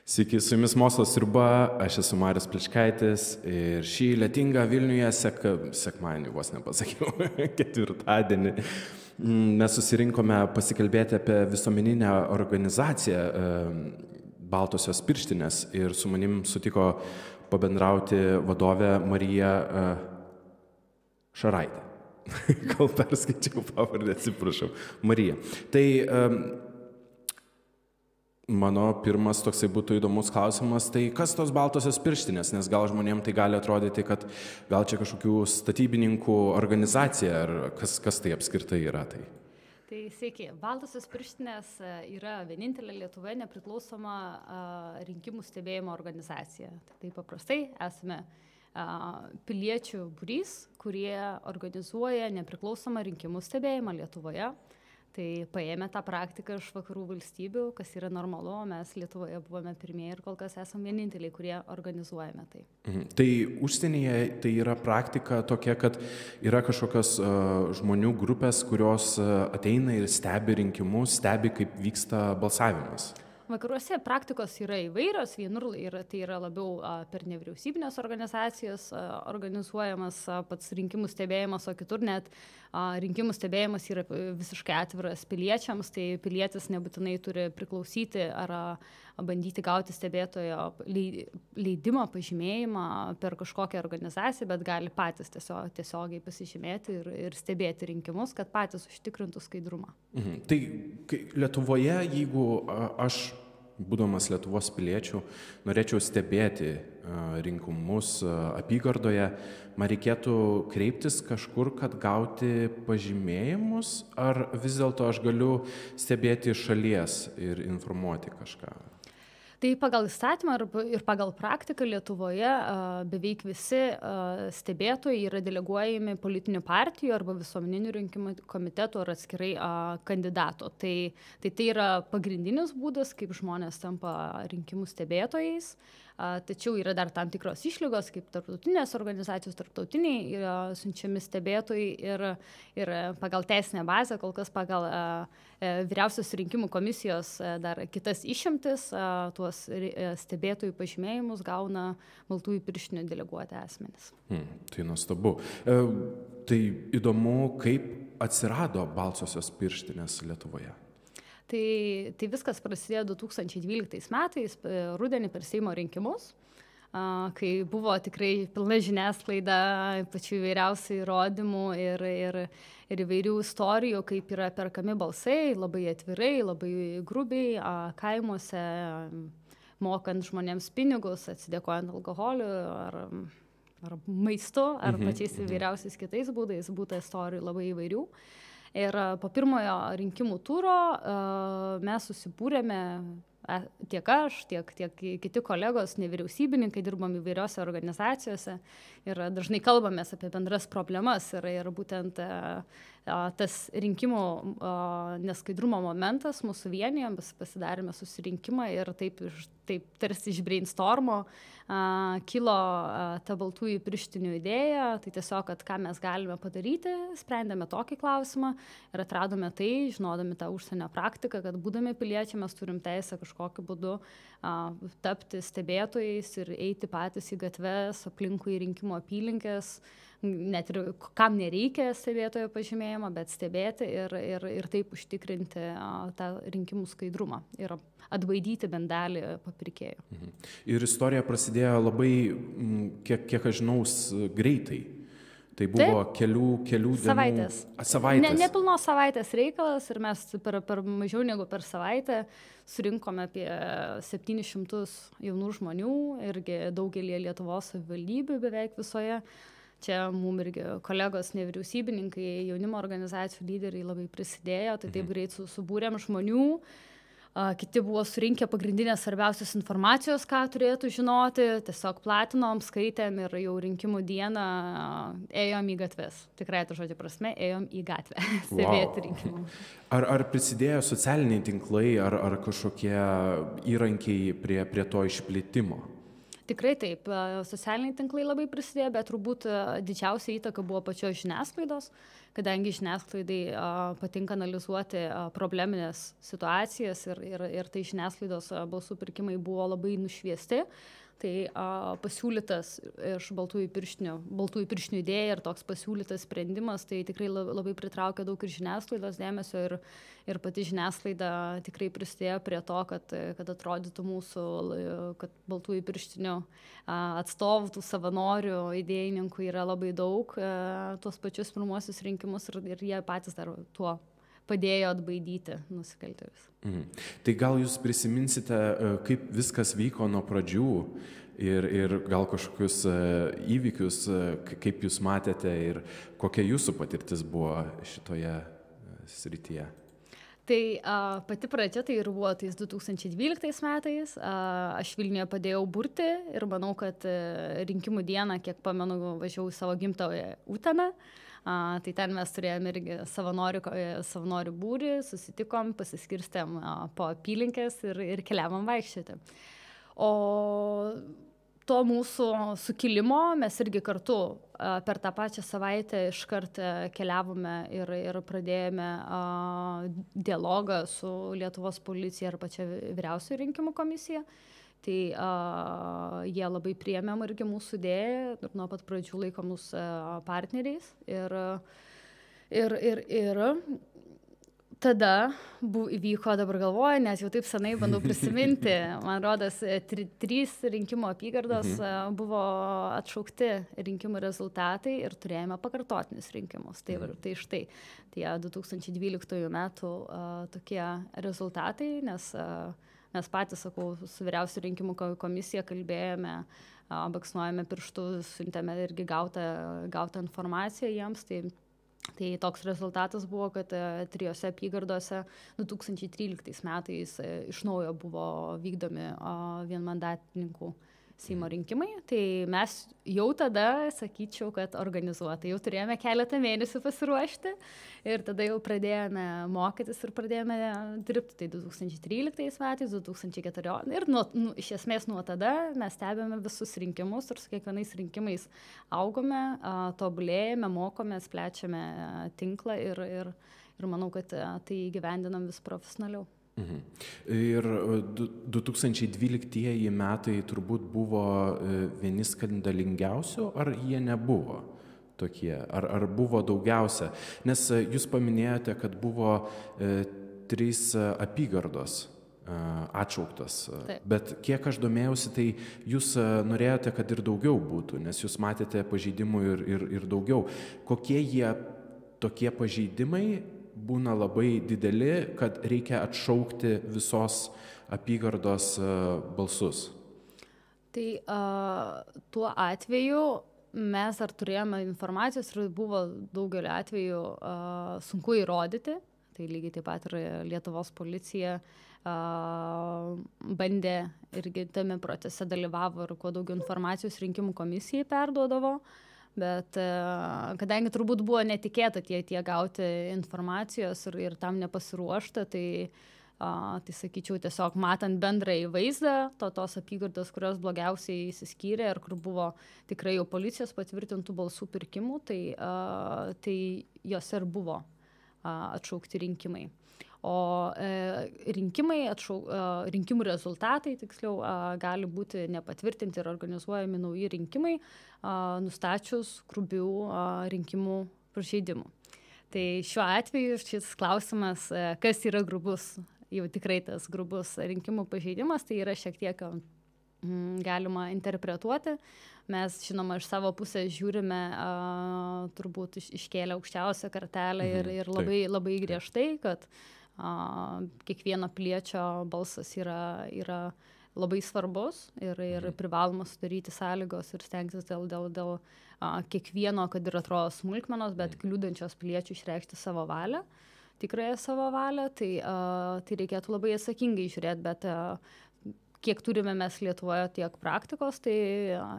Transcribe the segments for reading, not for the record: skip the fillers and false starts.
Sveiki, su jumis Mokslo sriuba, aš esu Marius Pličkaitis ir šį lietingą Vilniuje sekmadienį, vos nepasakiau, ketvirtadienį, mes susirinkome pasikalbėti apie visuomeninę organizaciją Baltosios pirštinės ir su manim sutiko pabendrauti vadovė Marija Šaraitė. Gal perskaičiau pavardę, atsiprašau. Marija. Tai mano pirmas toksai būtų įdomus klausimas, tai kas tos Baltosios pirštinės, nes gal žmonėms tai gali atrodyti, kad gal čia kažkokių statybininkų organizacija, ar kas tai apskritai yra tai? Tai sveiki, Baltosios pirštinės yra vienintelė Lietuvoje nepriklausoma rinkimų stebėjimo organizacija. Tai paprastai esame piliečių būrys, kurie organizuoja nepriklausomą rinkimų stebėjimą Lietuvoje. Tai paėmė tą praktiką iš vakarų valstybių, kas yra normalu, mes Lietuvoje buvome pirmieji ir kol kas esame vieninteliai, kurie organizuojame tai. Tai užsienyje tai yra praktika tokia, kad yra kažkokios žmonių grupės, kurios ateina ir stebi rinkimus, stebi, kaip vyksta balsavimas. Vakaruose praktikos yra įvairios, vienur tai yra labiau per nevyriausybinės organizacijas organizuojamas pats rinkimų stebėjimas, o kitur net rinkimų stebėjimas yra visiškai atviras piliečiams, tai pilietis nebūtinai turi priklausyti ar bandyti gauti stebėtojo leidimą, pažymėjimą per kažkokią organizaciją, bet gali patys tiesiogiai pasižymėti ir stebėti rinkimus, kad patys užtikrintų skaidrumą. Tai Lietuvoje, jeigu aš, būdamas Lietuvos piliečių, norėčiau stebėti rinkimus apygardoje, man reikėtų kreiptis kažkur, kad gauti pažymėjimus, ar vis dėlto aš galiu stebėti iš šalies ir informuoti kažką? Tai pagal įstatymą ir pagal praktiką Lietuvoje beveik visi stebėtojai yra deleguojami politinių partijų arba visuomeninių rinkimų komitetų ar atskirai kandidato. Tai yra pagrindinis būdas, kaip žmonės tampa rinkimų stebėtojais. Tačiau yra dar tam tikros išlygos, kaip tarptautinės organizacijos, tarptautiniai yra siunčiami stebėtojai ir pagal teisinę bazę, kol kas pagal vyriausios rinkimų komisijos dar kitas išimtis, tuos stebėtojų pažymėjimus gauna baltųjų pirštinių deleguoti asmenys. Tai nuostabu. Tai įdomu, kaip atsirado Baltosios pirštinės Lietuvoje? Tai viskas prasidėjo 2012 metais, rudenį per Seimo rinkimus, kai buvo tikrai pilna žiniasklaida, pačių įvairiausių įrodymų ir įvairių istorijų, kaip yra perkami balsai, labai atvirai, labai grubiai, kaimuose, mokant žmonėms pinigus, atsidėkojant alkoholiu ar maistu, ar pačiais įvairiausiais kitais būdais, būta istorijų labai įvairių. Ir po pirmojo rinkimų turo mes susibūrėme, tiek aš, tiek kiti kolegos, nevyriausybininkai, dirbam įvairiose organizacijose ir dažnai kalbamės apie bendras problemas ir būtent tas rinkimų neskaidrumo momentas mūsų vienijo, mes pasidarėme susirinkimą ir taip tarsi iš brainstormo kilo ta baltųjų pirštinių idėja, tai tiesiog, kad ką mes galime padaryti, sprendėme tokį klausimą ir atradome tai, žinodami tą užsienio praktiką, kad būdami piliečiai mes turim teisę kažkokiu būdu tapti stebėtojais ir eiti patys į gatves, aplinkui rinkimų apylinkės, net ir kam nereikia stebėtojo pažymėjimo, bet stebėti ir taip užtikrinti tą rinkimų skaidrumą ir atbaidyti bent dalį papirkėjų. Ir istorija prasidėjo labai, kiek aš žinau, greitai. Tai buvo kelių dienų. Savaitės. Nepilnos savaitės reikalas ir mes per mažiau negu per savaitę surinkome apie 700 jaunų žmonių irgi daugelį Lietuvos savivaldybių beveik visoje. Čia mums irgi kolegos nevyriausybininkai, jaunimo organizacijų lyderiai labai prisidėjo, tai taip greit subūrėm žmonių. Kiti buvo surinkę pagrindinės svarbiausios informacijos, ką turėtų žinoti, tiesiog platinom, skaitėm ir jau rinkimų dieną ėjom į gatves. Tikrai to žodžio prasme, ėjom į gatvę stebėti rinkimų. Ar prisidėjo socialiniai tinklai ar kažkokie įrankiai prie to išplitimo? Tikrai taip, socialiniai tinklai labai prisidėjo, bet turbūt didžiausia įtaka buvo pačios žiniasklaidos, kadangi žiniasklaidai patinka analizuoti probleminės situacijas ir tai žiniasklaidos balsų pirkimai buvo labai nušviesti. Tai pasiūlytas iš baltųjų pirštinių idėja ir toks pasiūlytas sprendimas, tai tikrai labai pritraukia daug ir žiniasklaidos dėmesio ir pati žiniasklaida tikrai prisidėjo prie to, kad atrodytų mūsų, kad baltųjų pirštinių atstovų, tų savanorių, idėjininkų yra labai daug, tuos pačius pirmuosius rinkimus ir jie patys dar tuo padėjo atbaidyti nusikaltėlius. Tai gal jūs prisiminsite, kaip viskas vyko nuo pradžių ir gal kažkokius įvykius, kaip jūs matėte ir kokia jūsų patirtis buvo šitoje srityje? Tai pati pradžia tai ir buvo tais 2012 metais. Aš Vilniuje padėjau burti ir manau, kad rinkimų dieną, kiek pamenu, važiavau į savo gimtąją Uteną. Tai ten mes turėjome irgi savanorių būrį, susitikom, pasiskirstėm po apylinkės ir keliavom vaikščioti. O to mūsų sukilimo mes irgi kartu per tą pačią savaitę iškart keliavome ir pradėjome dialogą su Lietuvos policija ir pačia vyriausioji rinkimų komisija. Tai jie labai priėmėm irgi mūsų idėją ir nuo pat pradžių laiko mus partneriais. Ir tada įvyko, dabar galvoju, nes jau taip senai bandau prisiminti, man rodos, 3 rinkimų apygardos buvo atšaukti rinkimų rezultatai ir turėjome pakartotinius rinkimus. Tai štai tie 2012 metų tokie rezultatai, nes mes patys, sakau, su vyriausia rinkimų komisija kalbėjome, baksnuojame pirštų, siuntėme irgi gautą informaciją jiems. Tai toks rezultatas buvo, kad 3 apygardose 2013 metais iš naujo buvo vykdomi vienmandatininkų Seimo rinkimai. Tai mes jau tada, sakyčiau, kad organizuotai jau turėjome keletą mėnesių pasiruošti ir tada jau pradėjome mokytis ir pradėjome dirbti. Tai 2013 metais, 2014 ir iš esmės nuo tada mes stebėme visus rinkimus ir su kiekvienais rinkimais augome, tobulėjame, mokomės, plečiame tinklą ir manau, kad tai įgyvendinam vis profesionaliau. Ir 2012 metai turbūt buvo vieni skandalingiausių, ar jie nebuvo tokie, ar buvo daugiausia? Nes jūs paminėjote, kad buvo 3 apygardos atšauktas, bet kiek aš domėjausi, tai jūs norėjote, kad ir daugiau būtų, nes jūs matėte pažeidimų ir daugiau. Kokie jie tokie pažeidimai būna labai dideli, kad reikia atšaukti visos apygardos balsus? Tai tuo atveju mes ar turėjome informacijos ir buvo daugelio atveju sunku įrodyti. Tai lygiai taip pat ir Lietuvos policija bandė irgi tame procese dalyvavo ir kuo daugiau informacijos rinkimų komisijai perduodavo. Bet kadangi turbūt buvo netikėta tie gauti informacijos ir tam nepasiruošta, tai sakyčiau, tiesiog matant bendrąjį vaizdą tos apygardos, kurios blogiausiai įsiskyrė ir kur buvo tikrai jau policijos patvirtintų balsų pirkimų, tai jose ir buvo atšaukti rinkimai. O rinkimų rezultatai, tiksliau, gali būti nepatvirtinti ir organizuojami nauji rinkimai, nustačius grubių rinkimų pažeidimų. Tai šiuo atveju šis klausimas, kas yra grubus, jau tikrai tas grubus rinkimų pažeidimas, tai yra šiek tiek galima interpretuoti. Mes, žinoma, iš savo pusės žiūrime, turbūt iškėlę aukščiausią kartelę ir labai griežtai, kad kiekvieno piliečio balsas yra labai svarbus ir privaloma sudaryti sąlygos ir stengtis dėl kiekvieno, kad ir atrodo smulkmenos, bet kliūdančios piliečių išreikšti savo valią, tikrąją savo valią, tai reikėtų labai atsakingai žiūrėti, bet kiek turime mes Lietuvoje tiek praktikos, tai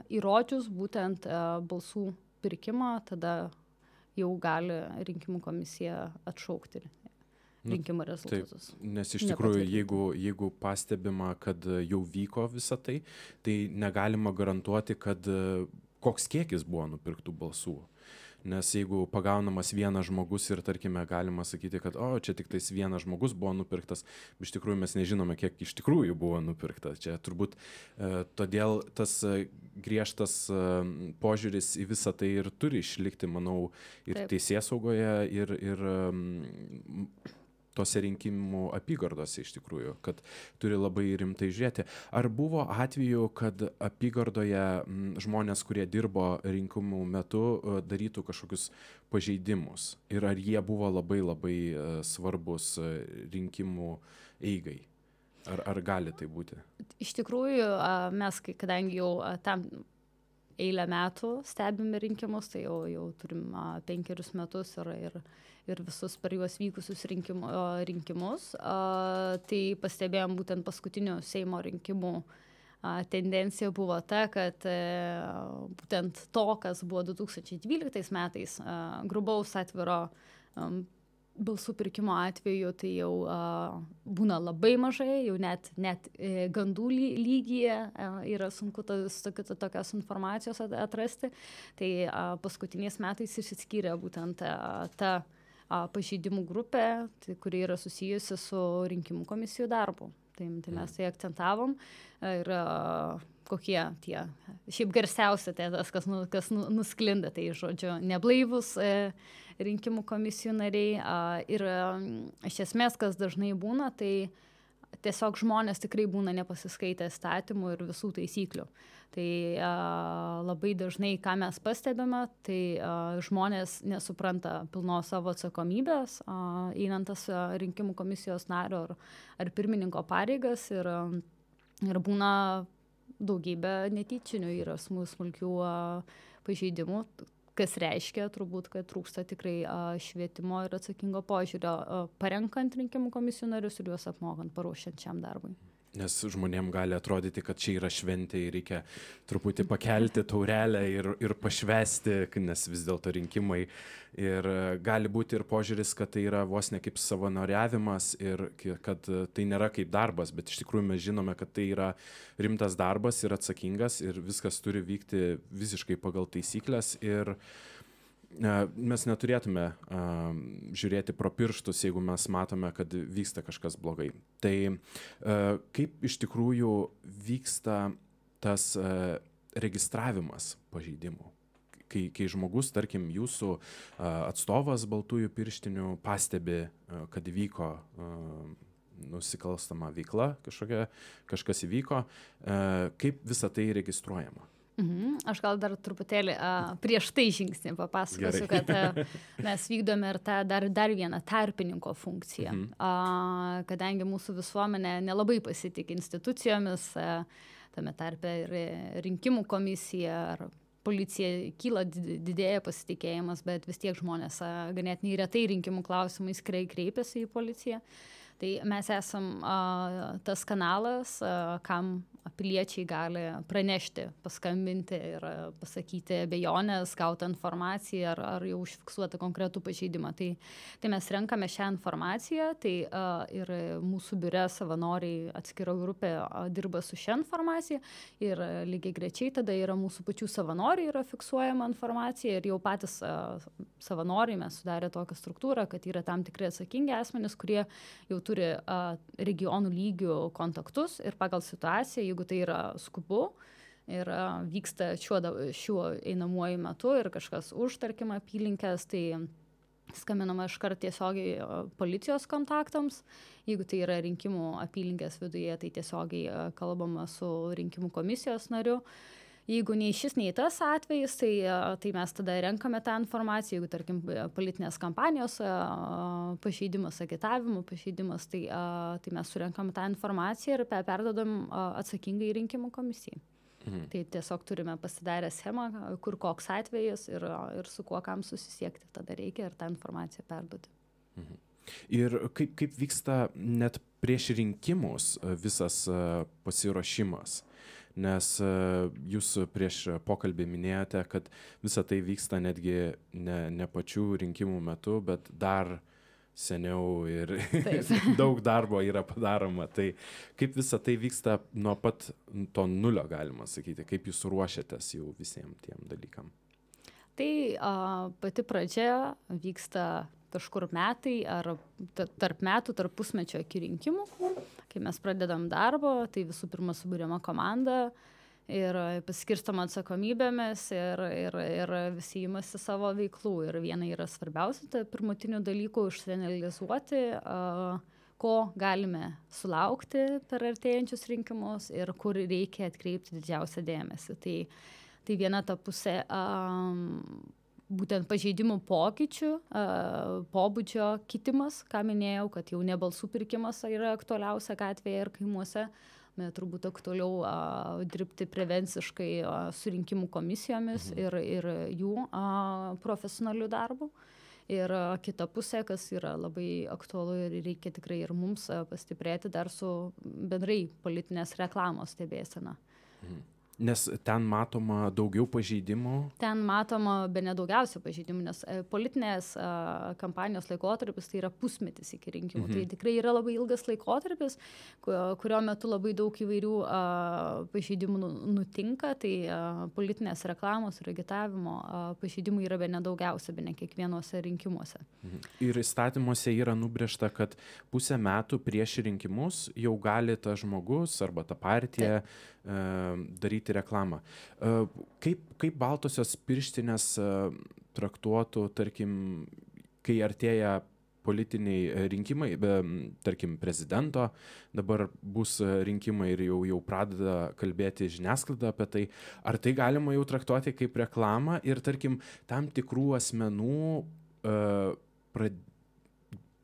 įrodžius būtent balsų pirkimą, tada jau gali rinkimų komisija atšaukti rinkimų rezultatus. Taip, nes iš tikrųjų, jeigu pastebima, kad jau vyko visa tai, tai negalima garantuoti, kad koks kiekis buvo nupirktų balsų. Nes jeigu pagaunamas vienas žmogus ir, tarkime, galima sakyti, kad čia tik tais vienas žmogus buvo nupirktas, iš tikrųjų mes nežinome, kiek iš tikrųjų buvo nupirkta. Čia turbūt todėl tas griežtas požiūris į visą tai ir turi išlikti, manau, ir teisėsaugoje, ir tose rinkimų apygardose iš tikrųjų, kad turi labai rimtai žiūrėti. Ar buvo atveju, kad apygardoje žmonės, kurie dirbo rinkimų metu, darytų kažkokius pažeidimus? Ir ar jie buvo labai labai svarbus rinkimų eigai? Ar gali tai būti? Iš tikrųjų, mes, kadangi jau tam eilę metų stebime rinkimus, tai jau turim 5 metus ir visus per juos vykusius rinkimus, tai pastebėjom būtent paskutinių Seimo rinkimų tendencija buvo ta, kad būtent to, kas buvo 2012 metais, grubaus atviro balsų pirkimo atveju, tai jau būna labai mažai, jau net gandų lygyje yra sunku tokios informacijos atrasti. Tai paskutiniais metais išsiskyrė būtent ta pažeidimų grupė, kuri yra susijusi su rinkimų komisijų darbu. Tai mes tai akcentavom ir kokie tie, šiaip garsiausia tas, kas nusklinda, tai žodžiu, neblaivus rinkimų komisijų nariai. Ir iš esmės, kas dažnai būna, tai tiesiog žmonės tikrai būna nepasiskaitę įstatymų ir visų taisyklių. Tai labai dažnai, ką mes pastebime, tai žmonės nesupranta pilnos savo atsakomybės, einant tas rinkimų komisijos nario ar pirmininko pareigas ir būna daugybė netyčinių yra smulkių pažeidimų, kas reiškia turbūt, kad trūksta tikrai švietimo ir atsakingo požiūrio parenkant rinkimų komisijų narius ir juos apmokant, paruošiant šiam darbui. Nes žmonėm gali atrodyti, kad čia yra šventė ir reikia truputį pakelti taurelę ir pašvesti, nes vis dėlto rinkimai. Ir gali būti ir požiūris, kad tai yra vos ne kaip savanoriavimas ir kad tai nėra kaip darbas, bet iš tikrųjų mes žinome, kad tai yra rimtas darbas ir atsakingas ir viskas turi vykti visiškai pagal taisyklės ir mes neturėtume žiūrėti pro pirštus, jeigu mes matome, kad vyksta kažkas blogai. Tai kaip iš tikrųjų vyksta tas registravimas pažeidimų? Kai žmogus, tarkim, jūsų atstovas baltųjų pirštinių pastebi, kad įvyko nusikalstama veikla, kažkas įvyko, kaip visa tai registruojama? Aš gal dar truputėlį prieš tai žingsnį papasakosiu, kad mes vykdome ir dar vieną tarpininko funkciją. Kadangi mūsų visuomenė nelabai pasitikė institucijomis, tame tarpe ir rinkimų komisija ar policija kyla, didėja pasitikėjimas, bet vis tiek žmonės ganėtinai retai rinkimų klausimais kreipiasi į policiją. Tai mes esam tas kanalas, kam piliečiai gali pranešti, paskambinti ir pasakyti abejonės, gauti informaciją ar jau užfiksuoti konkretų pažeidimą. Tai mes renkame šią informaciją, tai ir mūsų biure savanoriai atskira grupė dirba su šią informaciją ir lygiai grečiai tada yra mūsų pačių savanoriai yra fiksuojama informacija ir jau patys savanoriai mes sudarė tokią struktūrą, kad yra tam tikri atsakingi asmenys, kurie jau turi regionų lygių kontaktus ir pagal situaciją, jeigu tai yra skubu ir vyksta šiuo einamuoju metu ir kažkas už, tarkim, apylinkės, tai skambinama iškart tiesiogiai policijos kontaktams. Jeigu tai yra rinkimų apylinkės viduje, tai tiesiogiai kalbama su rinkimų komisijos nariu. Jeigu nei šis, nei tas atvejis, tai mes tada renkame tą informaciją. Jeigu, tarkim, politinės kampanijos pažeidimas, agitavimo pažeidimas, tai mes surenkame tą informaciją ir perdodam atsakingai rinkimų komisijai. Tai tiesiog turime pasidarę schemą, kur koks atvejis ir su kuo kam susisiekti. Tada reikia ir tą informaciją perduoti. Ir kaip vyksta net prieš rinkimus visas pasiruošimas? Nes jūs prieš pokalbį minėjote, kad visa tai vyksta netgi ne pačių rinkimų metu, bet dar seniau ir daug darbo yra padaroma. Tai kaip visa tai vyksta nuo pat to nulio, galima sakyti, kaip jūs ruošiatės jau visiems tiem dalykam? Tai pati pradžia vyksta kažkur metai ar tarp metų, tarp pusmečio iki rinkimų. Kai mes pradedam darbo, tai visų pirma suburiama komanda ir paskirstama atsakomybėmis ir visi imasi savo veiklų. Ir viena yra svarbiausia, tai pirmutinių dalykų išsianalizuoti, ko galime sulaukti per artėjančius rinkimus ir kur reikia atkreipti didžiausią dėmesį. Tai viena ta pusė būtent pažeidimų pokyčių, pobūdžio kitimas, ką minėjau, kad jau ne balsų pirkimas yra aktualiausia gatvėje ir kaimuose. Turbūt aktualiau dirbti prevenciškai su rinkimų komisijomis ir jų profesionalių darbų. Ir kita pusė, kas yra labai aktualu ir reikia tikrai ir mums pastiprėti dar su bendrai politinės reklamos stebėsena. Nes ten matoma daugiau pažeidimų? Ten matoma bene daugiausia pažeidimų, nes politinės kampanijos laikotarpis tai yra pusmetis iki rinkimų. Tai tikrai yra labai ilgas laikotarpis, kurio metu labai daug įvairių pažeidimų nutinka. Tai politinės reklamos ir agitavimo pažeidimų yra bene daugiausia, bene kiekvienuose rinkimuose. Ir įstatymuose yra nubrėžta, kad pusę metų prieš rinkimus jau gali tas žmogus arba ta partija daryti reklamą. Kaip baltosios pirštinės traktuotų, tarkim, kai artėja politiniai rinkimai, tarkim, prezidento, dabar bus rinkimai ir jau pradeda kalbėti žiniasklaida apie tai, ar tai galima jau traktuoti kaip reklamą ir, tarkim, tam tikrų asmenų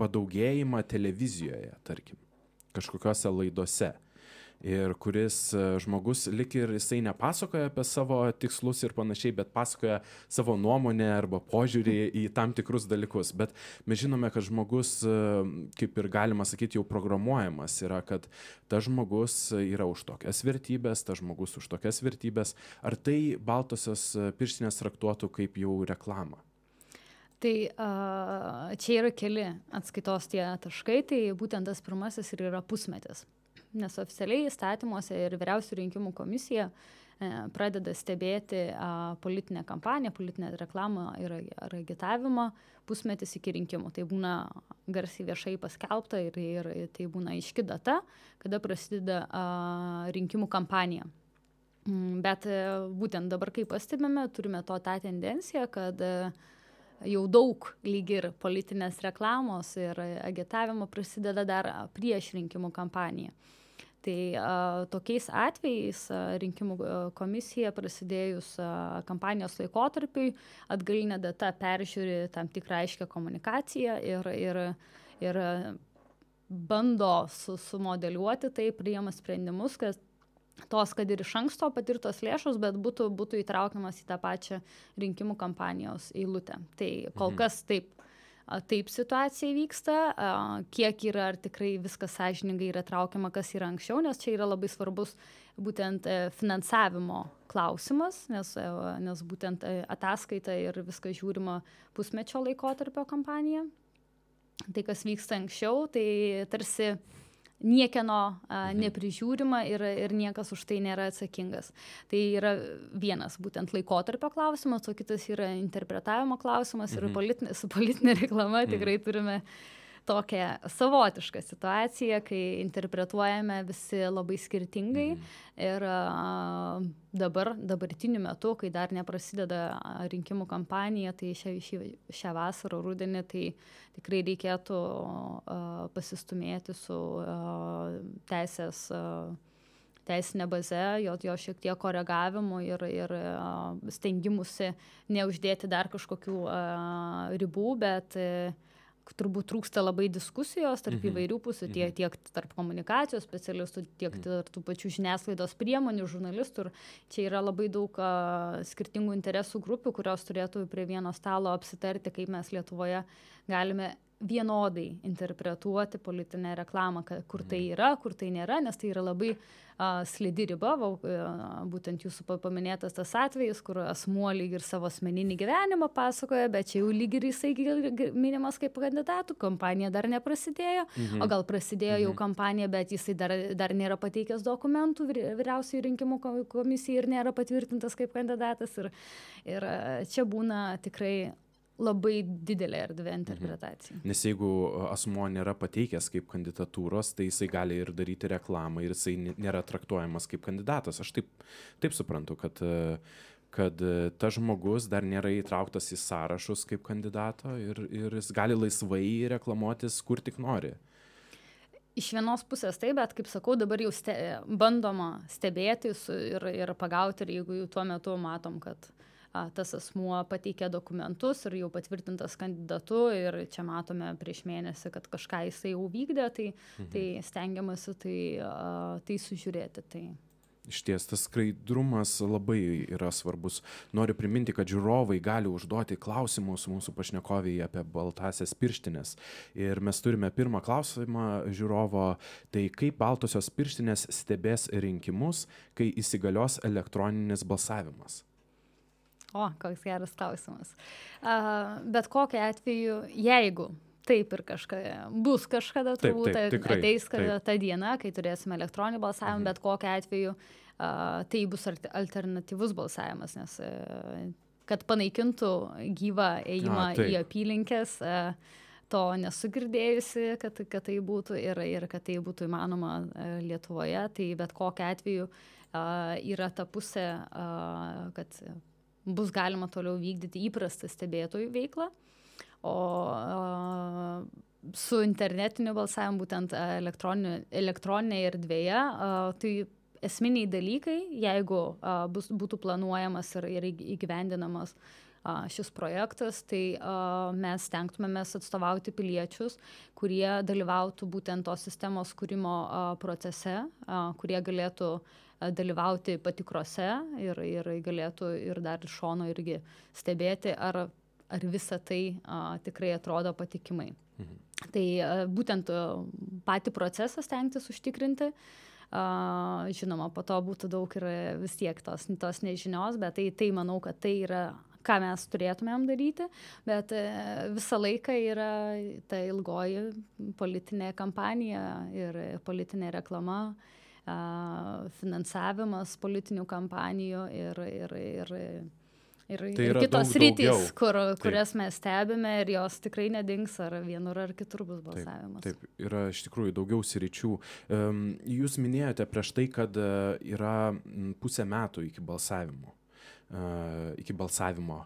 padaugėjimą televizijoje, tarkim, kažkokiose laidose. Ir kuris žmogus lik ir jisai nepasakoja apie savo tikslus ir panašiai, bet pasakoja savo nuomonę arba požiūrį į tam tikrus dalykus. Bet mes žinome, kad žmogus, kaip ir galima sakyti, jau programuojamas yra, kad tas žmogus yra už tokias vertybės, tas žmogus už tokias vertybės. Ar tai baltosios pirštinės traktuotų kaip jau reklamą? Tai čia yra keli atskaitos tie taškai, tai būtent tas pirmasis ir yra pusmetis. Nes oficialiai įstatymuose ir Vyriausiųjų rinkimų komisija pradeda stebėti politinę kampaniją, politinę reklamą ir agitavimą pusmetis iki rinkimų. Tai būna garsiai viešai paskelbta ir tai būna aiški data, kada prasideda rinkimų kampanija. Bet būtent dabar, kai pastebime, turime tą tendenciją, kad jau daug lyg ir politinės reklamos ir agitavimo prasideda dar prieš rinkimų kampaniją. Tai tokiais atvejais rinkimų komisija prasidėjus kampanijos laikotarpiui atgalinė data peržiūri tam tikrą aiškę komunikaciją ir bando sumodeliuoti tai, priima sprendimus, kad ir iš anksto patirtos lėšos, bet būtų įtraukiamas į tą pačią rinkimų kampanijos eilutę. Tai kol kas taip situacija vyksta, kiek yra, ar tikrai viskas sąžiningai yra traukiama, kas yra anksčiau, nes čia yra labai svarbus būtent finansavimo klausimas, nes būtent ataskaita ir viskas žiūrima pusmečio laikotarpio kampanija. Tai, kas vyksta anksčiau, tai tarsi niekieno neprižiūrima ir niekas už tai nėra atsakingas. Tai yra vienas būtent laikotarpio klausimas, o kitas yra interpretavimo klausimas ir su politinė reklama tikrai turime tokią savotišką situaciją, kai interpretuojame visi labai skirtingai ir dabartiniu metu, kai dar neprasideda rinkimų kampanija, tai šią vasarą, rudenį, tai tikrai reikėtų pasistumėti su teisinė baze, jo šiek tiek koregavimu ir stengimusi neuždėti dar kažkokių ribų, bet turbūt trūksta labai diskusijos tarp įvairių pusių, tiek tarp komunikacijos specialistų, tiek tarp tų pačių žiniasklaidos priemonių, žurnalistų. Ir čia yra labai daug skirtingų interesų grupių, kurios turėtų prie vieno stalo apsitarti, kaip mes Lietuvoje galime vienodai interpretuoti politinę reklamą, kur tai yra, kur tai nėra, nes tai yra labai slidi riba, būtent jūsų paminėtas tas atvejis, kur asmuo lyg ir savo asmeninį gyvenimą pasakoja, bet čia jau lyg ir jisai minimas kaip kandidatų, kampanija dar neprasidėjo, o gal prasidėjo jau kampanija, bet jisai dar nėra pateikęs dokumentų vyriausiųjų rinkimų komisijai ir nėra patvirtintas kaip kandidatas. Ir čia būna tikrai labai didelė erdvė interpretacija. Nes jeigu asmuo nėra pateikęs kaip kandidatūros, tai jisai gali ir daryti reklamą ir jisai nėra traktuojamas kaip kandidatas. Aš taip suprantu, kad tas žmogus dar nėra įtrauktas į sąrašus kaip kandidato ir jis gali laisvai reklamuotis kur tik nori. Iš vienos pusės taip, bet kaip sakau, dabar jau bandoma stebėti ir pagauti, ir jeigu jau tuo metu matom, kad tas asmuo pateikė dokumentus ir jau patvirtintas kandidatu ir čia matome prieš mėnesį, kad kažką jisai jau vykdė, tai stengiamasi tai sužiūrėti. Tai. Išties, tas skaidrumas labai yra svarbus. Noriu priminti, kad žiūrovai gali užduoti klausimus mūsų pašnekoviai apie baltasias pirštinės. Ir mes turime pirmą klausimą žiūrovo, tai kaip baltosios pirštinės stebės rinkimus, kai įsigalios elektroninis balsavimas? O, koks geras klausimas. Bet kokiu atveju, jeigu taip ir bus kažkada, turbūt ateis ta diena, kai turėsime elektroninį balsavimą, bet kokiu atveju tai bus alternatyvus balsavimas, nes kad panaikintų gyvą ėjimą į apylinkės, to nesu girdėjusi, kad tai būtų ir kad tai būtų įmanoma Lietuvoje, tai bet kokiu atveju yra ta pusė, kad bus galima toliau vykdyti įprastą stebėtojų veiklą, o su internetiniu balsavimu, būtent elektroninėje erdvėje, tai esminiai dalykai, jeigu būtų planuojamas ir įgyvendinamas šis projektas, tai mes stengtumėmės atstovauti piliečius, kurie dalyvautų būtent tos sistemos kūrimo procese, kurie galėtų dalyvauti patikrose ir galėtų ir dar iš šono irgi stebėti, ar visa tai tikrai atrodo patikimai. Tai būtent patį procesą stengtis užtikrinti. Žinoma, po to būtų daug ir vis tiek tos nežinios, bet tai manau, kad tai yra, ką mes turėtumėm daryti, bet visą laiką yra ta ilgoji politinė kampanija ir politinė reklama, finansavimas politinių kampanijų ir kitos rytis, kurias mes stebime ir jos tikrai nedings, ar vienur ar kitur bus balsavimas. Taip, yra iš tikrųjų daugiau sričių. Jūs minėjote prieš tai, kad yra pusę metų iki balsavimo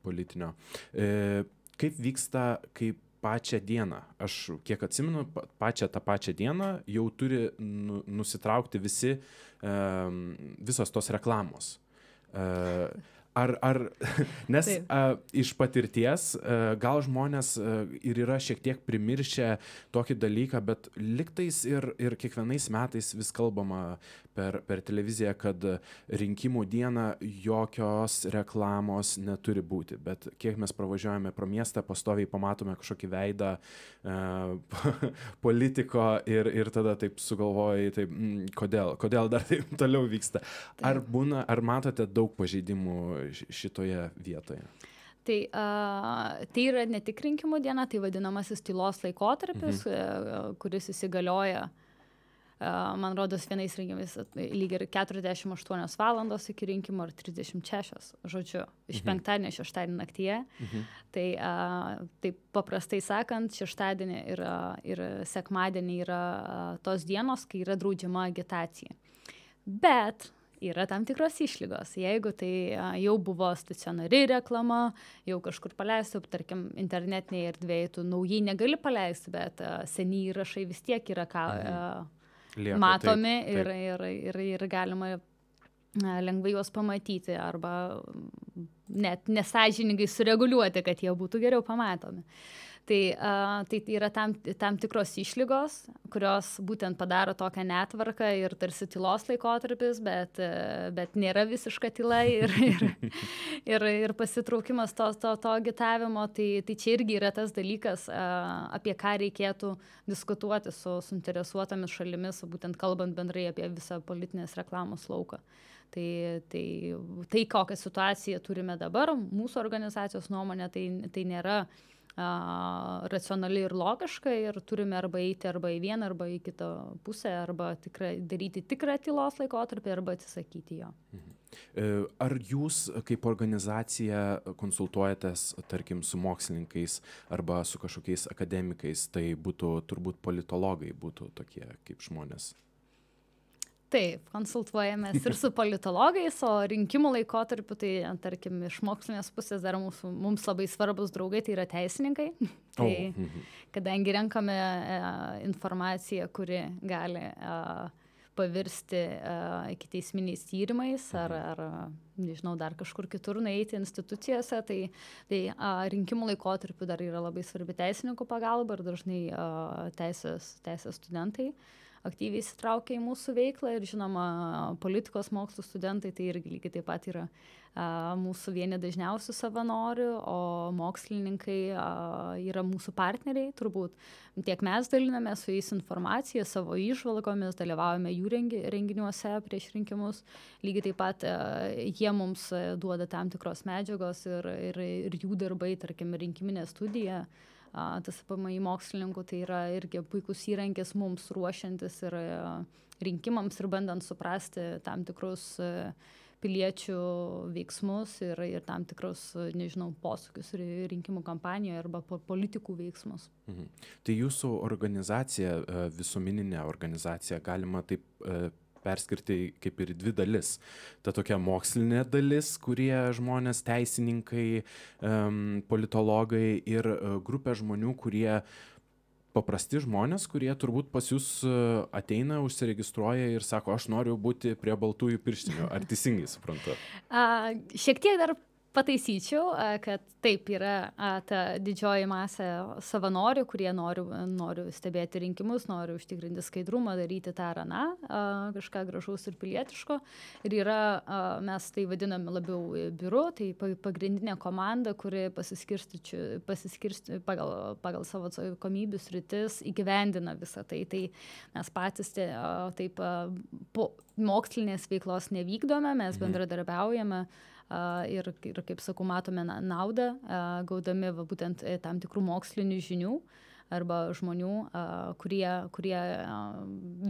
politinio. Kaip vyksta, kaip pačią dieną? Aš kiek atsimenu, tą pačią dieną jau turi nusitraukti visos tos reklamos. Nes iš patirties gal žmonės ir yra šiek tiek primiršę tokį dalyką, bet liktais ir kiekvienais metais vis kalbama per televiziją, kad rinkimų dieną jokios reklamos neturi būti. Bet kiek mes pravažiuojame pro miestą, pastoviai pamatome kažkokį veidą politiko ir tada taip sugalvojai, taip, kodėl dar taip toliau vyksta. Ar matote daug pažeidimų šitoje vietoje? Tai yra ne tik rinkimų diena, tai vadinamasis tylos laikotarpis, kuris įsigalioja, man rodos, vienais rinkimais lyg ir 48 valandos iki rinkimų ar 36, žodžiu, iš penktadienio šeštadienį naktyje. Tai paprastai sakant, šeštadienį ir sekmadienį yra tos dienos, kai yra draudžiama agitacija. Bet yra tam tikros išlygos. Jeigu tai jau buvo stacionari reklama, jau kažkur paleisti, tarkim, internetinėje erdvėje, tu naujai negali paleisti, bet seni įrašai vis tiek yra matomi ir galima lengvai juos pamatyti arba net nesąžiningai sureguliuoti, kad jie būtų geriau pamatomi. Tai yra tam tikros išlygos, kurios būtent padaro tokią netvarką ir tarsi tylos laikotarpis, bet nėra visiška tyla ir pasitraukimas to agitavimo. Tai čia irgi yra tas dalykas, apie ką reikėtų diskutuoti su suinteresuotomis šalimis, būtent kalbant bendrai apie visą politinės reklamos lauką. Tai kokią situaciją turime dabar, mūsų organizacijos nuomonė, tai nėra racionali ir logiška ir turime arba eiti arba į vieną, arba į kitą pusę, arba daryti tikrą tylos laikotarpį, arba atsisakyti jo. Ar jūs kaip organizacija konsultuojatės, tarkim, su mokslininkais arba su kažkokiais akademikais, tai būtų turbūt politologai būtų tokie kaip žmonės? Taip, konsultuojamės ir su politologais, o rinkimų laikotarpiu, tai, tarkim, iš mokslinės pusės dar mums labai svarbus draugai, tai yra teisininkai. Tai, kadangi renkame informaciją, kuri gali pavirsti ikiteisminiais tyrimais ar nežinau, dar kažkur kitur nueiti institucijose, tai rinkimų laikotarpiu dar yra labai svarbi teisininkų pagalba ir dažnai teisės studentai aktyviai įsitraukia į mūsų veiklą ir žinoma, politikos mokslų studentai tai irgi lygiai taip pat yra mūsų vieni dažniausių savanorių, o mokslininkai yra mūsų partneriai, turbūt tiek mes daliname su jais informaciją, savo įžvalgomis, dalyvaujame jų renginiuose prieš rinkimus, lygiai taip pat jie mums duoda tam tikros medžiagos ir jų darbai, tarkim, rinkiminė studija. Tas PMI mokslininkų tai yra irgi puikus įrankis mums ruošiantis ir rinkimams ir bandant suprasti tam tikrus piliečių veiksmus ir tam tikrus, nežinau, posūkius rinkimų kampanijoje arba politikų veiksmus. Tai jūsų organizacija, visuomeninė organizacija, galima taip perskirti kaip ir dvi dalis. Ta tokia mokslinė dalis, kurie žmonės, teisininkai, politologai ir grupė žmonių, kurie paprasti žmonės, kurie turbūt pas jūs ateina, užsiregistruoja ir sako, aš noriu būti prie baltųjų pirštinių. Ar teisingai suprantu? Šiek tiek dar pataisyčiau, kad taip yra ta didžioji masė savanorių, kurie nori stebėti rinkimus, nori užtikrinti skaidrumą, daryti tą ar aną, kažką gražaus ir pilietiško. Ir yra, mes tai vadiname labiau biuru, tai pagrindinė komanda, kuri pasiskirsti pagal savo atsakomybių sritis įgyvendina visą tai. Tai mes patys taip po mokslinės veiklos nevykdome, mes bendradarbiaujame ir kaip sakau, matome naudą, gaudami būtent tam tikrų mokslinių žinių arba žmonių, kurie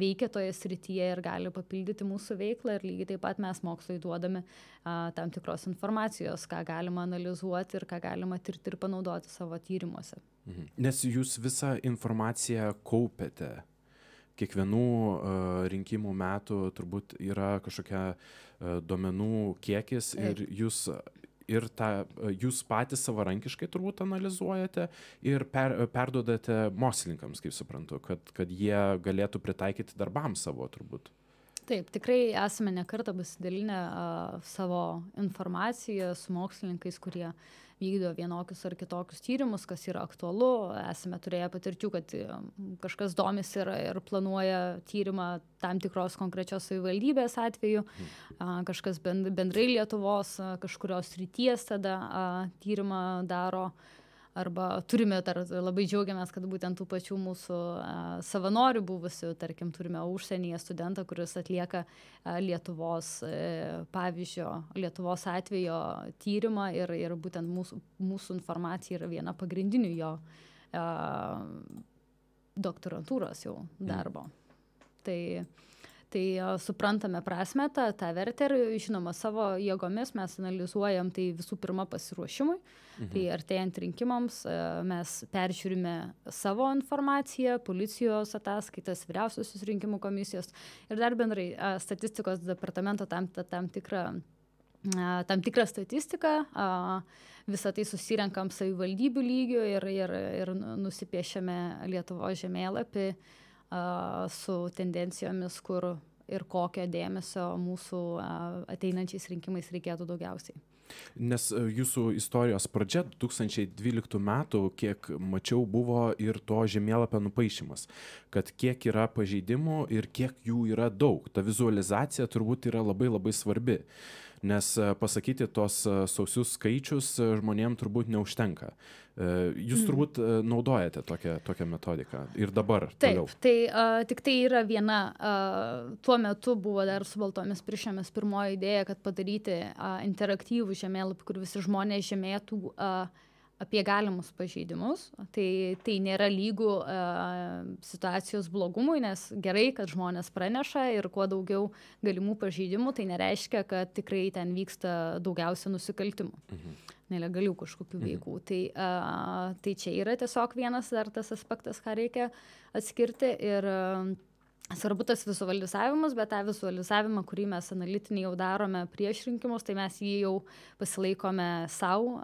veikia toje srityje ir gali papildyti mūsų veiklą ir lygiai taip pat mes mokslui duodame tam tikros informacijos, ką galima analizuoti ir ką galima tirti ir panaudoti savo tyrimuose. Nes jūs visą informaciją kaupiate. Kiekvienų rinkimų metų turbūt yra kažkokia duomenų kiekis ir jūs patys savarankiškai turbūt analizuojate ir perduodate mokslininkams, kaip suprantu, kad jie galėtų pritaikyti darbams savo turbūt. Taip, tikrai esame ne kartą pasidalinę savo informaciją su mokslininkais, kurie vykdo vienokius ar kitokius tyrimus, kas yra aktualu. Esame turėję patirčių, kad kažkas domisi ir planuoja tyrimą tam tikros konkrečios savivaldybės atveju, kažkas bendrai Lietuvos, kažkurios srities tada tyrimą daro. Arba turime, labai džiaugiamės, kad būtent tų pačių mūsų savanorių buvusių, tarkim, turime užsienyje studentą, kuris atlieka Lietuvos atvejo tyrimą ir būtent mūsų informacija yra viena pagrindinių jo doktorantūros jau darbo. Tai suprantame prasmę, tą vertę ir, žinoma, savo jėgomis mes analizuojam tai visų pirma pasiruošimui. Tai artėjant rinkimams mes peržiūrime savo informaciją, policijos ataskaitas, vyriausiosios rinkimų komisijos ir dar bendrai statistikos departamento tam tikrą statistiką. Visą tai susirenkam savivaldybių lygių ir nusipiešiame Lietuvos žemėlapį su tendencijomis, kur ir kokio dėmesio mūsų ateinančiais rinkimais reikėtų daugiausiai. Nes jūsų istorijos pradžia 2012 metų, kiek mačiau, buvo ir to žemėlapio nupaišymas, kad kiek yra pažeidimų ir kiek jų yra daug. Ta vizualizacija turbūt yra labai labai svarbi, nes pasakyti tos sausius skaičius žmonėm turbūt neužtenka. Jūs turbūt naudojate tokią metodiką ir dabar toliau. Taip, tai tik tai yra viena, tuo metu buvo dar su baltomis piršėmis pirmoji idėja, kad padaryti interaktyvų žemėlapį, kur visi žmonės žymėtų apie galimus pažeidimus. Tai nėra lygų situacijos blogumui, nes gerai, kad žmonės praneša ir kuo daugiau galimų pažeidimų, tai nereiškia, kad tikrai ten vyksta daugiausia nusikaltimų. Nelegalių kažkokių veikų. Tai čia yra tiesiog vienas dar tas aspektas, ką reikia atskirti ir svarbu tas vizualizavimas, bet tą vizualizavimą, kurį mes analitinį jau darome prieš rinkimus, tai mes jį jau pasilaikome savo,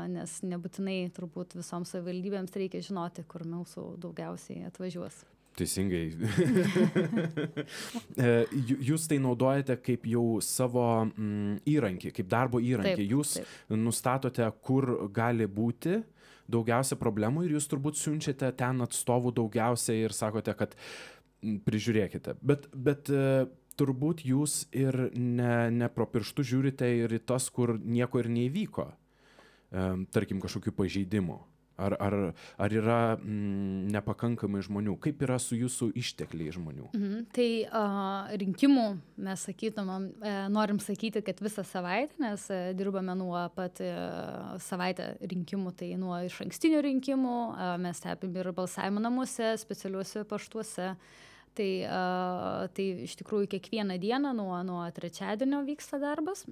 nes nebūtinai turbūt visoms savivaldybėms reikia žinoti, kur mūsų daugiausiai atvažiuos. Teisingai. Jūs tai naudojate kaip jau savo įrankį, kaip darbo įrankį. Jūs nustatote, kur gali būti daugiausia problemų ir jūs turbūt siunčiate ten atstovų daugiausiai ir sakote, kad prižiūrėkite. Bet turbūt jūs ir ne pro pirštų žiūrite ir į tas, kur nieko ir neįvyko, tarkim kažkokių pažeidimų. Ar yra nepakankamai žmonių? Kaip yra su jūsų ištekliai žmonių? Tai rinkimų mes sakytumėm, norim sakyti, kad visą savaitę, nes dirbame nuo pat savaitę rinkimų, tai nuo išankstinių rinkimų, mes stebim ir balsavimo namuose, specialiuose paštuose. Tai iš tikrųjų kiekvieną dieną nuo trečiadienio vyksta darbas.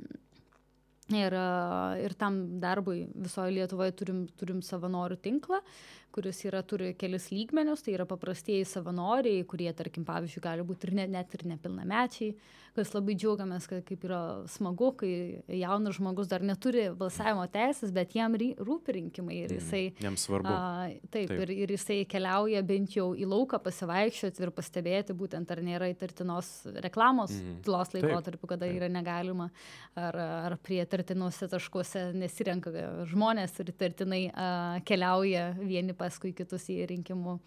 Ir tam darbui visoje Lietuvoje turim savanorių tinklą, kuris turi kelis lygmenius, tai yra paprastieji savanoriai, kurie, tarkim, pavyzdžiui, gali būti ir net ir nepilnamečiai, kas labai džiaugiamės, kad kaip yra smagu, kai jaunas žmogus dar neturi balsavimo teisės, bet jam rūpi rinkimai ir jisai... Jam svarbu. Taip. Ir jisai keliauja bent jau į lauką pasivaikščioti ir pastebėti būtent, ar nėra įtartinos reklamos tylos laikotarpiu, kada yra negalima, ar prie įtartinuose taškuose nesirenka žmonės ir įtartinai keliauja vieni paskui kitus į rinkimų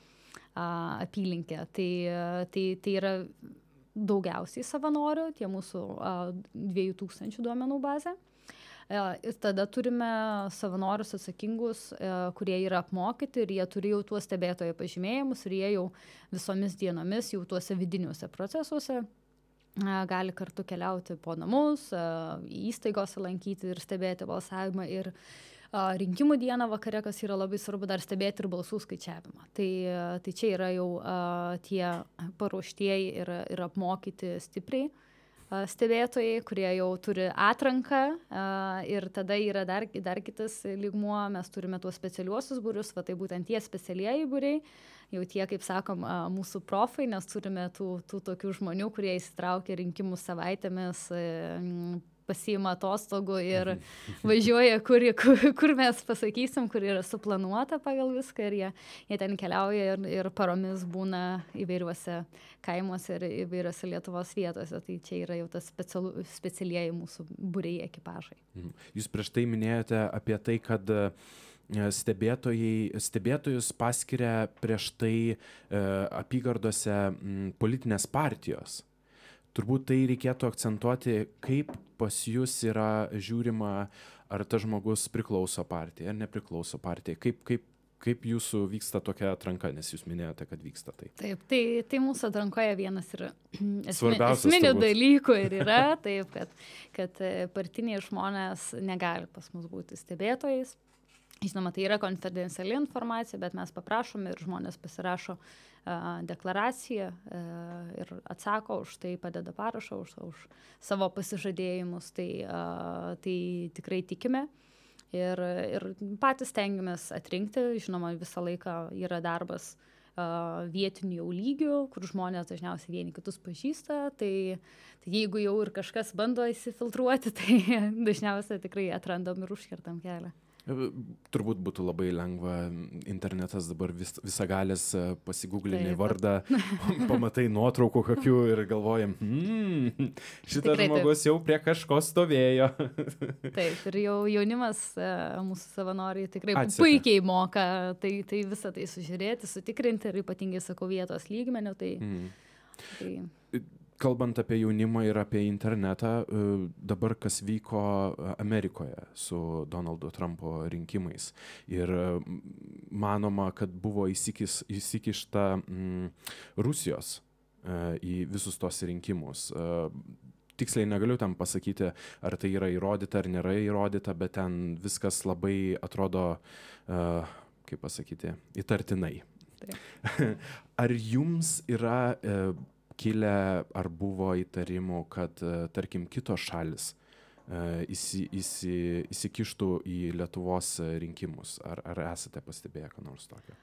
apylinkę. Tai yra daugiausiai savanorių, tie mūsų 2000 duomenų bazė. Ir tada turime savanorius atsakingus, kurie yra apmokyti ir jie turi jau tuos stebėtojo pažymėjimus ir jie jau visomis dienomis jau tuose vidiniuose procesuose gali kartu keliauti po namus, įstaigose lankyti ir stebėti balsavimą ir rinkimų dieną vakare, kas yra labai svarbu, dar stebėti ir balsų skaičiavimą. Tai čia yra jau tie paruoštieji ir apmokyti stipriai stebėtojai, kurie jau turi atranką ir tada yra dar kitas lygmuo, mes turime tuos specialiuosius būrius, tai būtent tie specialieji būriai, jau tie, kaip sakom, mūsų profai, nes turime tų tokių žmonių, kurie įsitraukia rinkimų savaitėmis, pasiima atostogų ir važiuoja, kur mes pasakysim, kur yra suplanuota pagal viską ir jie ten keliauja ir paromis būna įvairiuose kaimuose ir įvairiuose Lietuvos vietose. Tai čia yra jau tas specialieji mūsų būriai ekipažai. Jūs prieš tai minėjote apie tai, kad stebėtojus paskiria prieš tai apygardose politinės partijos. Turbūt tai reikėtų akcentuoti, kaip pas jūs yra žiūrima, ar tas žmogus priklauso partijai, ar nepriklauso partijai. Kaip jūsų vyksta tokia atranka, nes jūs minėjote, kad vyksta tai. Taip, tai mūsų atrankoje vienas yra esminių dalykų ir yra, taip, kad partiniai žmonės negali pas mus būti stebėtojais. Žinoma, tai yra konfidenciali informacija, bet mes paprašome ir žmonės pasirašo deklaraciją ir atsako už tai, padeda parašą už savo pasižadėjimus. Tai tikrai tikime ir patys stengiamės atrinkti. Žinoma, visą laiką yra darbas vietinių jau lygių, kur žmonės dažniausiai vieni kitus pažįsta. Tai jeigu jau ir kažkas bando įsifiltruoti, tai dažniausiai tikrai atrandam ir užkertam kelią. Turbūt būtų labai lengva, internetas dabar visagalis, pasigūglini Taip, vardą, pamatai nuotraukų kokių ir galvojam, šitas Tikrai taip. žmogus jau prie kažko stovėjo. Taip, ir jau jaunimas, mūsų savanoriai tikrai Atseka. puikiai moka tai visą tai sužiūrėti, sutikrinti ir ypatingai, sakau, vietos lygmenių. Tai Kalbant apie jaunimą ir apie internetą, dabar kas vyko Amerikoje su Donaldo Trumpo rinkimais. Ir manoma, kad buvo įsikišta Rusijos į visus tos rinkimus. Tiksliai negaliu tam pasakyti, ar tai yra įrodyta ar nėra įrodyta, bet ten viskas labai atrodo, kaip pasakyti, įtartinai. Ar jums yra kilę ar buvo įtarimų, kad, tarkim, kitos šalis įsikištų į Lietuvos rinkimus? Ar esate pastebėję ką nors tokio?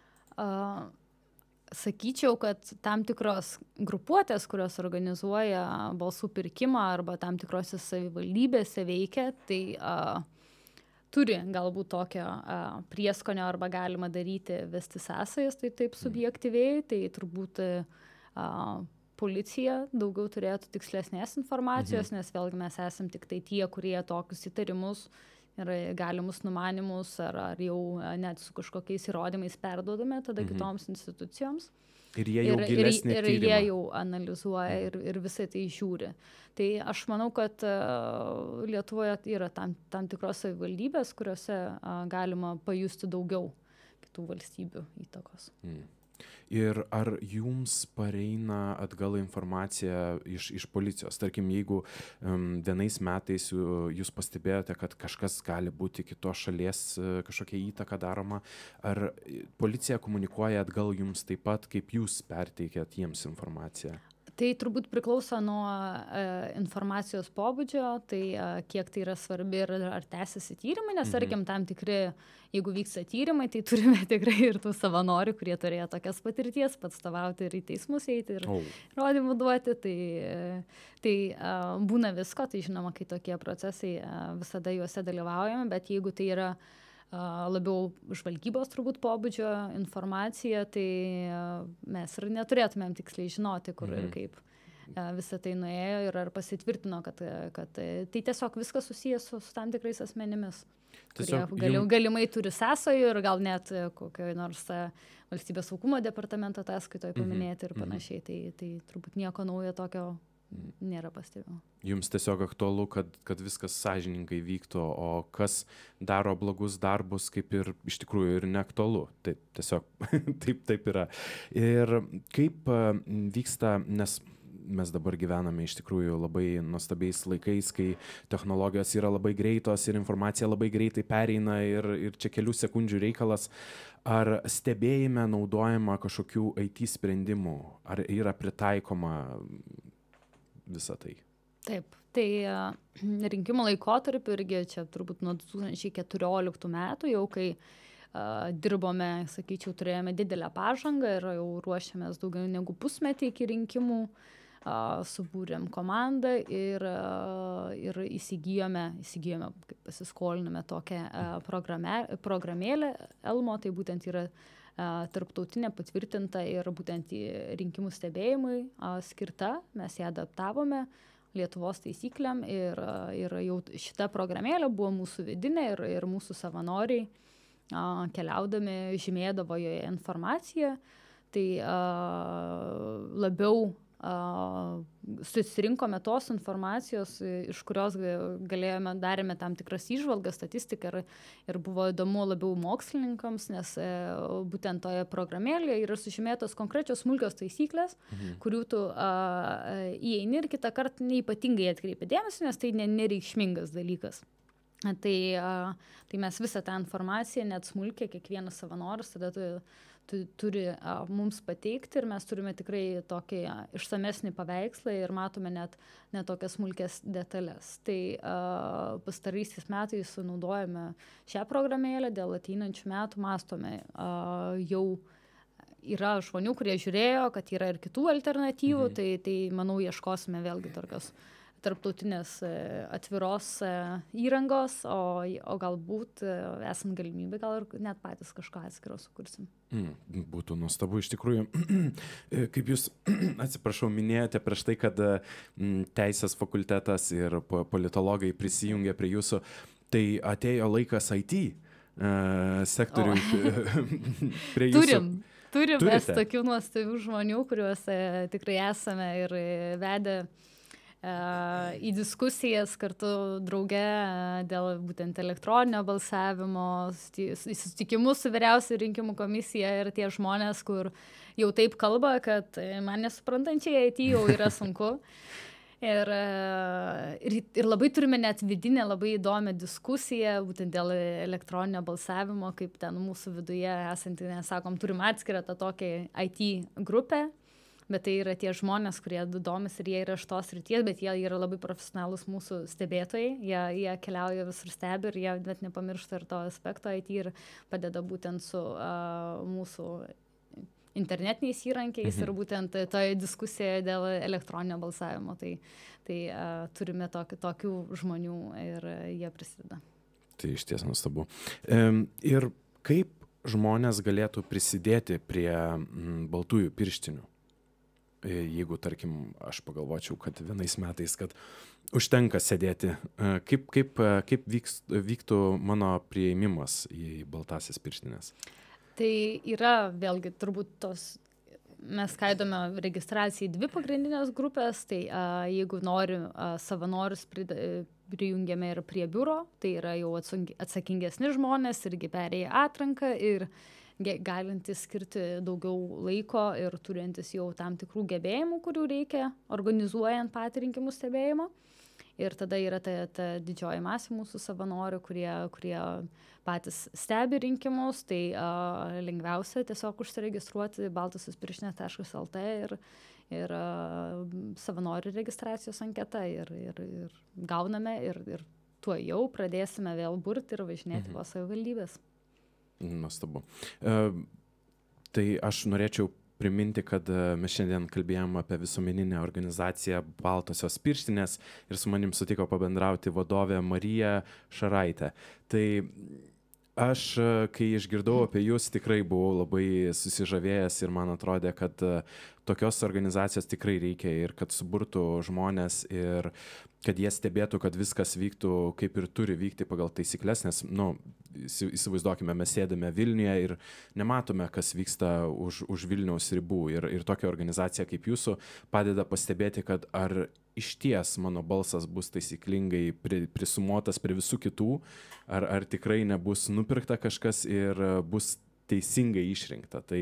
Sakyčiau, kad tam tikros grupuotės, kurios organizuoja balsų pirkimą arba tam tikrose savivaldybėse veikia, tai turi galbūt tokio prieskonio arba galima daryti, vesti sąsajas, tai taip subjektyviai, tai turbūt policija daugiau turėtų tikslesnės informacijos, nes vėlgi mes esam tik tai tie, kurie tokius įtarimus ir galimus numanimus ar jau net su kažkokiais įrodymais perduodame tada kitoms institucijoms. Ir jie jau gilesnį tyrimą. Ir jie jau analizuoja ir visai tai žiūri. Tai aš manau, kad Lietuvoje yra tam tikros savivaldybės, kuriuose galima pajusti daugiau kitų valstybių įtakos. Ir ar jums pareina atgal informacija iš policijos? Tarkim, jeigu vienais metais jūs pastebėjote, kad kažkas gali būti kitos šalies kažkokia įtaka daroma, ar policija komunikuoja atgal jums taip pat, kaip jūs perteikėt jiems informaciją? Tai turbūt priklauso nuo informacijos pobūdžio, tai kiek tai yra svarbi ir ar tęsiasi tyrimai, nes tarkim tam tikri, jeigu vyksta tyrimai, tai turime tikrai ir tų savanorių, kurie turėjo tokias patirties, atstovauti ir į teismus eiti ir įrodymų duoti, tai būna visko, tai žinoma, kai tokie procesai visada juose dalyvaujame, bet jeigu tai yra labiau žvalgybos turbūt pobūdžio informacija, tai mes ir neturėtumėm tiksliai žinoti, kur ir kaip visą tai nuėjo ir ar pasitvirtino, kad tai tiesiog viskas susijęs su tam tikrais asmenimis, kurie galimai turi sąsajų ir gal net kokioje nors valstybės saugumo departamento ataskaitoje paminėti ir panašiai, tai turbūt nieko naujo tokio nėra pastebėjimo. Jums tiesiog aktualu, kad viskas sąžiningai vyktų, o kas daro blogus darbus, kaip ir iš tikrųjų ir neaktualu. Taip, tiesiog taip yra. Ir kaip vyksta, nes mes dabar gyvename iš tikrųjų labai nuostabiais laikais, kai technologijos yra labai greitos ir informacija labai greitai pereina ir čia kelių sekundžių reikalas. Ar stebėjime naudojama kažkokių IT sprendimų? Ar yra pritaikoma visą tai? Taip, tai rinkimų laikotarpiu irgi čia turbūt nuo 2014 metų jau, kai dirbome, sakyčiau, turėjome didelę pažangą ir jau ruošiamės daugiau negu pusmetį iki rinkimų, subūrėm komandą ir įsigijome, kaip pasiskolinome tokią programėlę Elmo, tai būtent yra tarptautinė patvirtinta ir būtent rinkimų stebėjimui skirta. Mes ją adaptavome Lietuvos taisykliam ir jau šita programėlė buvo mūsų vidinė ir mūsų savanoriai keliaudami žymėdavo joje informaciją. Tai labiau susirinkome tos informacijos, iš kurios darėme tam tikras įžvalgas, statistiką ir buvo įdomu labiau mokslininkams, nes būtent toje programėlėje yra sužymėtos konkrečios smulkios taisyklės, kurių tu įeini ir kitą kartą neypatingai atkreipi dėmesį, nes tai nereikšmingas dalykas. Tai mes visą tą informaciją, net smulkiai, kiekvienas savanoris tada turi mums pateikti ir mes turime tikrai tokį išsamesnį paveikslą ir matome net tokias smulkės detalės. Tai pastaraisiais metais naudojame šią programėlę, dėl ateinančių metų mąstome. Jau yra žmonių, kurie žiūrėjo, kad yra ir kitų alternatyvų, tai manau, ieškosime vėlgi tokios tarptautinės atviros įrangos, o galbūt esant galimybę, gal ir net patys kažką atskiro sukursim. Būtų nuostabu iš tikrųjų. Kaip jūs, atsiprašau, minėjote prieš tai, kad teisės fakultetas ir politologai prisijungė prie jūsų, tai atėjo laikas IT sektoriui prie jūsų. Turim mes tokių nuostabių žmonių, kuriuos tikrai esame ir vedę į diskusijas kartu drauge dėl būtent elektroninio balsavimo, į susitikimus su vyriausia rinkimų komisija ir tie žmonės, kur jau taip kalba, kad man nesuprantančiai IT jau yra sunku. Ir labai turime net vidinę labai įdomią diskusiją būtent dėl elektroninio balsavimo, kaip ten mūsų viduje esantį, nesakom, turim atskirą tą tokią IT grupę, bet tai yra tie žmonės, kurie domis ir jie yra iš tos srities, bet jie yra labai profesionalūs mūsų stebėtojai, jie keliauja visur stebi ir jie net nepamiršta ir to aspekto IT ir padeda būtent su mūsų internetiniais įrankiais ir būtent toje diskusijoje dėl elektroninio balsavimo. Tai turime tokių žmonių ir jie prisideda. Tai iš ties nuostabu. Ir kaip žmonės galėtų prisidėti prie baltųjų pirštinių? Jeigu, tarkim, aš pagalvočiau, kad vienais metais, kad užtenka sėdėti, kaip vyktų mano priėmimas į baltasias pirštinės? Tai yra vėlgi turbūt mes skaidome registraciją į 2 pagrindinės grupės, tai jeigu nori savanorius prijungiame ir prie biuro, tai yra jau atsakingesni žmonės irgi perėję atranką ir galintys skirti daugiau laiko ir turintys jau tam tikrų gebėjimų, kurių reikia organizuojant patį rinkimų stebėjimą. Ir tada yra ta didžioji masė mūsų savanorių, kurie patys stebi rinkimus, tai lengviausia tiesiog užsiregistruoti baltasiaspirštinės.lt ir savanorių registracijos anketą ir gauname ir tuo jau pradėsime vėl burti ir važinėti po savivaldybės. Nuostabu. Tai aš norėčiau priminti, kad mes šiandien kalbėjom apie visuomeninę organizaciją Baltosios pirštinės ir su manim sutiko pabendrauti vadovė Marija Šaraitė. Tai aš, kai išgirdau apie jūs, tikrai buvau labai susižavėjęs ir man atrodė, kad tokios organizacijos tikrai reikia ir kad suburtų žmonės ir kad jie stebėtų, kad viskas vyktų kaip ir turi vykti pagal taisyklės, nes, įsivaizduokime, mes sėdame Vilniuje ir nematome, kas vyksta už Vilniaus ribų ir tokia organizacija kaip jūsų padeda pastebėti, kad ar išties mano balsas bus taisyklingai prisumuotas prie visų kitų, ar tikrai nebus nupirkta kažkas ir bus teisingai išrinkta. Tai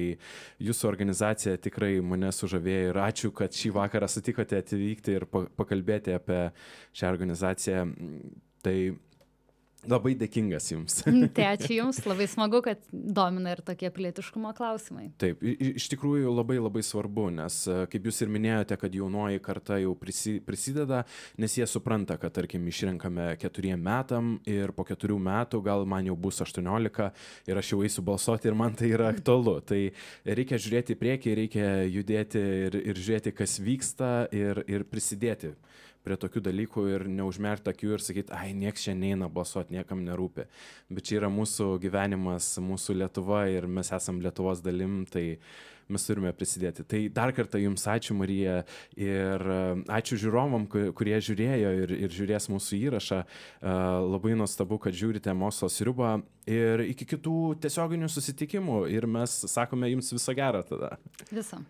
jūsų organizacija tikrai mane sužavėjo ir ačiū, kad šį vakarą sutikote atvykti ir pakalbėti apie šią organizaciją. Tai labai dėkingas jums. Tai ačiū jums, labai smagu, kad domina ir tokie pilietiškumo klausimai. Taip, iš tikrųjų labai labai svarbu, nes kaip jūs ir minėjote, kad jaunoji karta jau prisideda, nes jie supranta, kad tarkim išrenkame 4 metam ir po 4 metų gal man jau bus 18 ir aš jau eisiu balsuoti ir man tai yra aktualu. Tai reikia žiūrėti į priekį, reikia judėti ir žiūrėti, kas vyksta ir prisidėti prie tokių dalykų ir neužmerkti akių ir sakyti, nieks čia neina balsuoti, niekam nerūpi. Bet čia yra mūsų gyvenimas, mūsų Lietuva ir mes esam Lietuvos dalim, tai mes turime prisidėti. Tai dar kartą jums ačiū, Marija, ir ačiū žiūrovam, kurie žiūrėjo ir žiūrės mūsų įrašą. Labai nuostabu, kad žiūrite Mokslo sriubą ir iki kitų tiesioginių susitikimų ir mes sakome jums viso gero tada. Viso.